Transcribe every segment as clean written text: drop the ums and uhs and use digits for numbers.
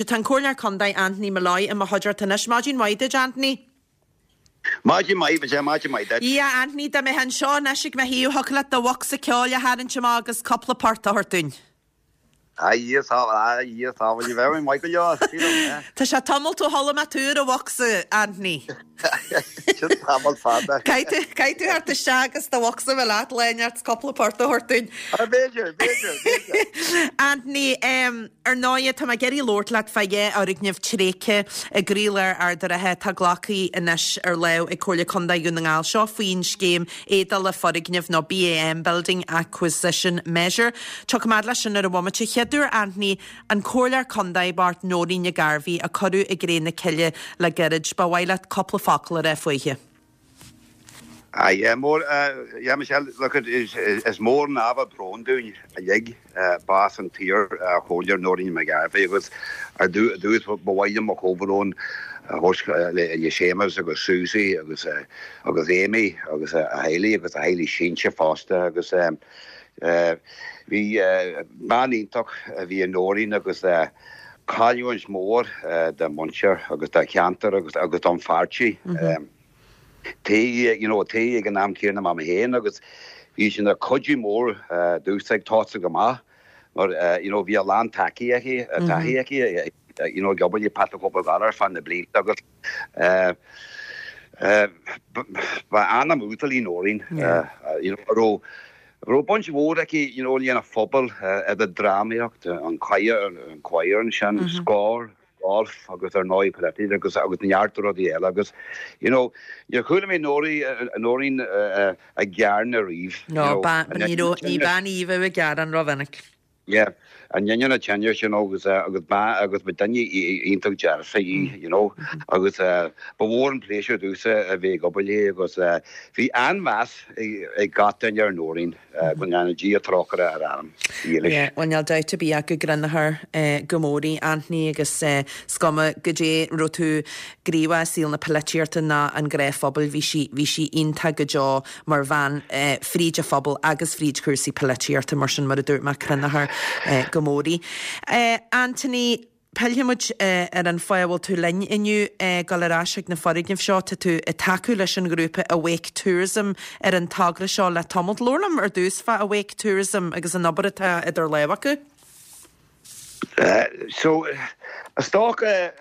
Tá an Comhairleoir Contae Anthony Molloy i mo chuideachta anois. Maidin mhaith duit, Anthony. Maidin mhaith, Michelle, maidin mhaith duit. Yeah, Anthony, dá mbeifeá anseo anois ag mo thaobh, thiocfadh leat do bhocsa ceoil a tharraingt amach agus cúpla port a thabhairt dúinn. A Dhia sábháil, a Dhia sábháil, ní bheadh mé maith go leor, sílim, eh. Tá sé tamalt ó chuala mé tú ar an bhocsa, Anthony. Sin tamall fada. Caithfidh tú, caithfidh tú theacht isteach agus do bhocsa a bheith leat lá inteacht 's cúpla port a thabhairt dúinn. Ah, b'fhéidir, b'fhéidir, b'fhéidir. Anthony, em, ar ndóighe, tá mé ag iarraidh labhairt leat fá dhá fhoirgneamh tréigthe i gcroílár Ard an Rátha atá glactha anois ar lámh ag Comhairle Contae Dhún na nGall. Seo faoin scéim éadála foirgneamh nó BAM, Building Acquisition Measure. Tiocfaidh mé fhad leis sin ar an bhomaite. Chéaduair, Anthony, An Comhairleoir Contae bocht Nóirín Nic Gairbhí a cuireadh i gcré na cille le gairid, ba mhaith leat cúpla focal a rá fúithi. Ah yeah, mór, yeah Michelle, look it, is, is mór an ábhar bróin dúinn uilig bás an t-iar Chomhairleoir Nóirín McGarvey agus ar dtús ba mhaith liom mo chomhbhrón a thabhairt le Séamus agus Susie agus agus Amy agus a theaghlaigh agus a theaghlaigh sínte fosta agus Bhí bean iontach a bhí i Nóirín agus cailliúint mór dá muintir agus dá cheantar agus don pháirtí. Taobh you know taobh ag an am céanna mar mé féin agus bhí sí ina cuidiú mór domhsa ag tosú amach mar you know bhí a lán taithí aici taithí aici you know ag obair le Pat the Cope Gallagher ar feadh na blianta agus Ba anam uasal í Nóirín, you know, a raibh a raibh baint mhór aici, you know, lena phobal, idir drámaíocht, an choir, an choir ansin, Scór, golf agus ar ndóigh polaitíocht agus agus neart rudaí eile agus, you know, níor chuala mé Nóirín ag gearán ariamh, you know. No, ní raibh, ní bean í a bheadh ag gearán rómhinic. Yeah, in ainneoin an tinnis, you know, agus agus ba agus ba duine iontach dearfach í, you know, agus ba mhór an pléisiúr domhsa a bheith ag obair léi agus bhí an-mheas ag gach duine ar Nóirín, go ndéana Dia trócaire ar a anam dhílis. Yeah, bhuel níl dabht ar bith ach go gcronófar go mór í, Anthony, agus is cuma goidé raibh tú gníomhach i saol na polaitíochta ná an gnáthphobail, bhí sí, bhí sí iontach go deo mar bhean fríd an phobal agus fríd chúrsaí polaitíochta, mar sin, mar a dúirt mé, cronófar go mór í. Anthony, pillfidh muid ar an fáth a bhfuil tú linn inniu, dul ar ais chuig na foirgnimh seo. Tá tú ag tacú leis an ghrúpa Awake Tourism ar an togra seo le tamalt. Labhair liom ar dtús fá Awake Tourism agus an obair atá idir lámha acu. So, is dócha,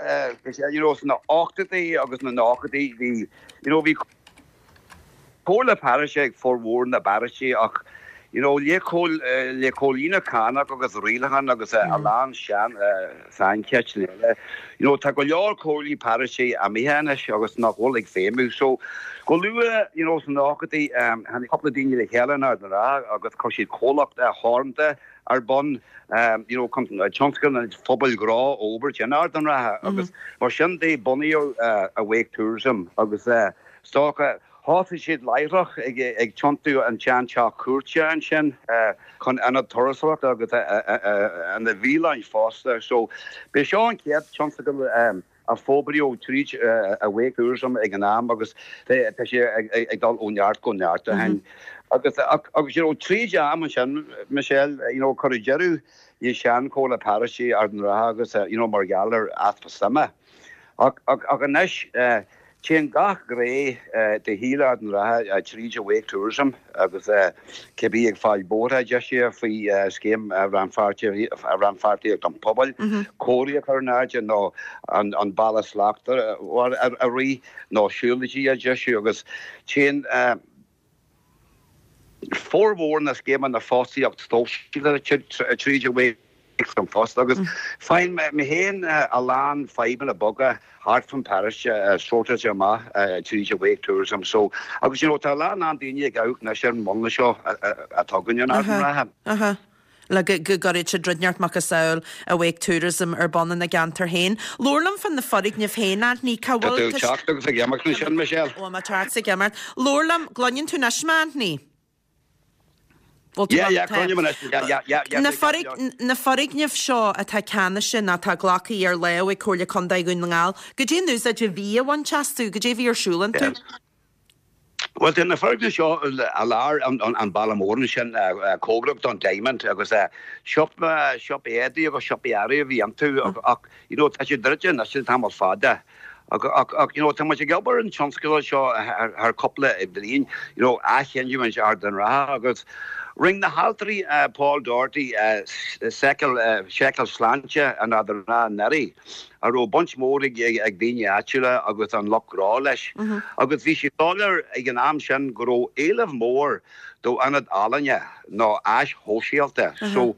you know, sna hochtóidí agus na nóchaidí, bhí, you know, bhí Comhairle paróiste ag formhór na bparóistí ach you know le le comhlíonadh cánach agus rialachán agus a lán sean saincheisteanna eile you know tá go leor comhairlí paróiste imithe anois agus nach bhfuil ag feidhmiú so go luath you know sna nóchaidí tháinig cúpla daoine le chéile in Ard an Rátha agus chuir siad comhlacht theoranta ar bun you know chun tionscnamh phobail ghnó a fhorbairt in Ard an Rátha agus mar sin de bunaíodh Awake Tourism agus Is dócha, thosaigh siad láithreach ag tiontú an tsean-teach cúirte ansin chun ionad turasóireachta agus ina bhialann fosta. So, b'é seo an chéad tionscadal a forbraíodh tríd Awake Tourism ag an am agus tá sé ag dul ó neart go neart ó shin. Agus, agus you know, tríd am ansin, Michelle, you know, cuireadh deireadh le sean-Chomhairle Paróiste Ard an Rátha agus, you know, mar gheall ar easpa suime. Ach, ach anois, Téann gach gné de shaol Ard an Rátha tríd Awake Tourism agus cibé ag fáil bóithre deisithe faoi scéim rannpháirtíocht an phobail, comharthaí a chur in airde nó an Bealach Slachtmhar a rith nó siúlóidí a dheisiú agus téann formhór na scéimeanna fostaíocht sóisialta tríd Awake Tourism fosta agus faigheann mé féin a lán fadhbanna beaga thart fán paróiste sórtáilte amach tríd Awake Tourism so agus you know tá a lán lán daoine ag amharc anois ar an múnla seo atá againn in Ard an Rátha. le go gcuirfidh siad rud inteacht macasamhail Awake Tourism ar bun ina gceantar féin. Labhair liom fá na foirgnimh féin, Anthony, cá Tá bhfuil tú ag teacht agus ag imeacht ansin, Michelle. Ó, mé ag teacht is ag imeacht. Labhair liom, gcluineann tú anois mé, Anthony? Bhfuil tú Yeah, yeah, cluinim anois. Yeah, yeah, yeah, yeah, Na foirg, na foirgnimh seo atá ceannaithe nó atá glactha ar lámh ag Comhairle Contae Dhún na nGall, goidé an úsáid a bhí á bhaint astu, goidé a bhí ar siúl iontu? Bhuel, tá na foirgnimh seo i lár an bhaile mór ansin, cóngarach don Diamond agus siopa, siopa éadaí agus siopa earraí a bhí iontu ach you know tá siad druidte anois le tamall fada. Ach ach you know tá muid ag obair ar an tionscadal seo thar cúpla bliain, you know athghiniúint Ard an Rátha agus rinne na hailtirí Paul Doherty seiceáil seiceáil sláinte in Ard an Rátha anuraidh. a raibh baint mhór ag daoine áitiúla agus an lucht gnó leis, agus bhí sé soiléir ag an am sin go raibh éileamh mór d'ionad ealaíne nó áis shóisialta. So,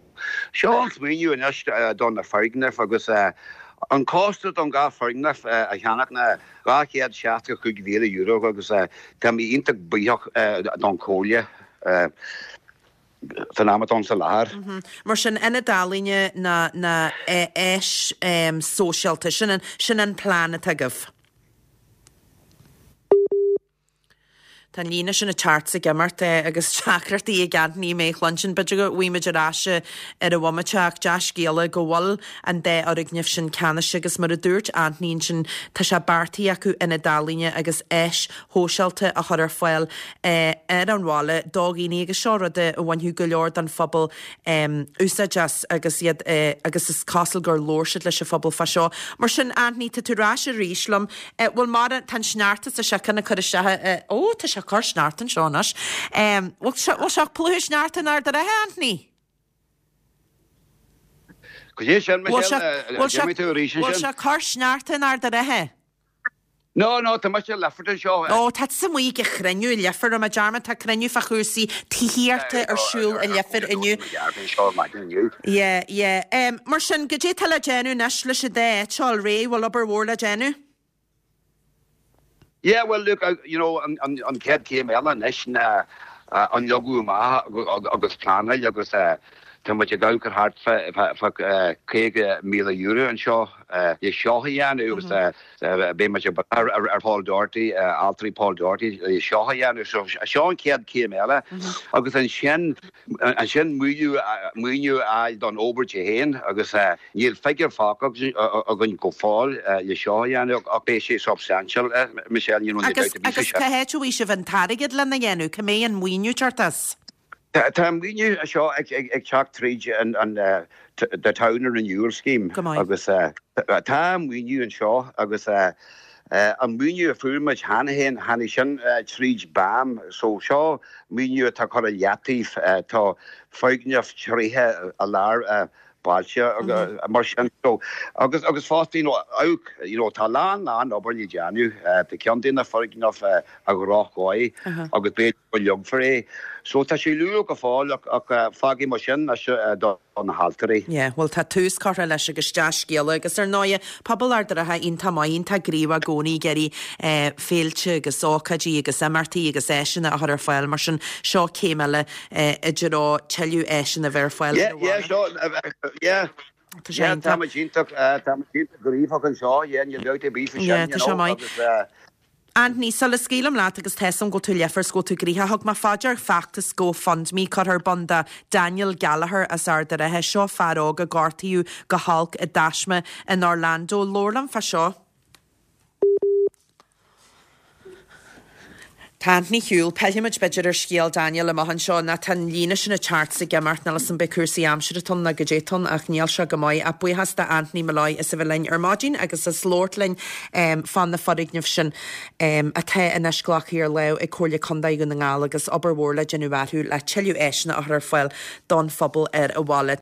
seo an smaoineamh anois do na foirgnimh agus an costas don dhá foirgneamh a cheannach ná €265,000 agus tá mé iontach buíoch don Chomhairle. san am atá ann sa láthair. Mar sin, ionad ealaíne ná ná áis sóisialta, sin an, sin an plean atá agaibh. Tá an líne sin ag teacht 's ag imeacht agus deacrachtaí ag Anthony mé a chluinstin. B'fhéidir go bhfaighidh muid ar ais ar an bhomaite ach dea-scéala go bhfuil an dá fhoirgneamh sin ceannaithe agus mar a dúirt Anthony ansin tá sé beartaithe acu ionad ealaíne agus áis shóisialta a chur ar fáil ar an bhaile do dhaoine agus seo rud a bhainfeadh go leor den phobal úsáid as agus iad agus is cosúil gur labhair siad leis an phobal fá seo. Mar sin, Anthony, tá tú ar ais arís liom. Bhfuil mar, tá an sneachta sa seiceann ag cur isteach, ó, tá sé ag cur sneachta anseo anois. Bhfuil sé, bhfuil sé ag plúchadh sneachta in Ard an Rátha, Anthony? Cad é sin, Michelle, déanfaidh tú arís ansin. Bhfuil sé ag cur sneachta in Ard an Rátha? No, no, tá mise i Leifear anseo. Ó, tá tusa amuigh ag cruinniú i Leifear, raibh mé dearmad, tá cruinniú fá chúrsaí tithíochta ar siúl i Leifear inniu. Yeah, yeah. Em, mar sin, goidé atá le déanamh anois leis an dá áit seo a fháil réidh, bhfuil obair mhór le déanamh? Yeah, well look, you know, an, an, an chéad chéim eile anois ná an leagadh amach agus pleanáil agus tá muid ag amharc ar thart fá, fá, fá €50,000 anseo le seo a dhéanamh agus Beidh muid ag brath ar Paul Doherty, ailtirí Paul Doherty le seo a dhéanamh. So seo an chéad chéim eile agus ansin ansin maoiniú maoiniú a fháil don obair di féin agus níl figiúr faighte againn go fóill le seo a dhéanamh ach beidh sé substantial, Michelle, you know, níl dabht ar bith faoi sin. Agus cá háit a bhfaighidh sibh an t-airgead lena dhéanamh? Cá mbeidh an maoiniú ag teacht as? Tá an maoiniú seo ag teacht tríd an The Town Renewal Scheme agus tá maoiniú anseo agus an maoiniú a fuair muid cheana féin, tháinig sin tríd BAM so seo maoiniú atá curtha i leataobh, tá foirgneamh tréigthe i lár bailte mar sin. So agus agus fosta you know amharc you know tá a lán lán obair le déanamh. Tá ceann de na foirgnimh i dhroch-dhóigh agus b'fhéidir go leagfar é. So tá sé luath go fóill ach ach fágfaidh muid sin anois do na hailtirí. Yeah, bhuel tá tús curtha leis agus dea-scéala agus ar ndóighe pobal Ard an Rátha iontach maith, iontach gníomhach i gcónaí ag iarraidh féilte agus ócáidí agus imeachtaí agus áiseanna a chur ar fáil mar sin seo céim eile i dtreo tuilleadh áiseanna a bheith ar fáil ar an bhaile. Yeah, Tá sé iontach. Tá muid iontach, tá muid iontach gníomhach anseo, yeah, níl dabht ar bith faoi sin, you know, agus. Anthony, sula scaoilim leat agus tá 'fhios a'm go bhfuil tú leifear 's go bhfuil tú gnoitheach, thug mé fá dear feachtas GoFundMe curtha ar bun do Daniel Gallagher as Ard an Rátha. Seo fear óg a gortaíodh go holc i dtaisme in Orlando. Labhair liom fá seo. Tá Anthony ar shiúl. Pillfimid b'fhéidir ar scéal Daniel amach anseo nó tá an líne sin ag teacht 's ag imeacht, níl 'fhios a'm an b'é cúrsaí aimsire atá ann nó goidé atá ann ach níl sé go maith. Ach buíochas do Anthony Molloy as a bheith linn ar maidin agus as labhairt linn fá na foirgnimh sin atá anois glactha ar láimh ag Comhairle Contae Dhún na nGall agus obair mhór le déanamh orthu le tuilleadh áiseanna a chur ar fáil don phobal ar an bhaile.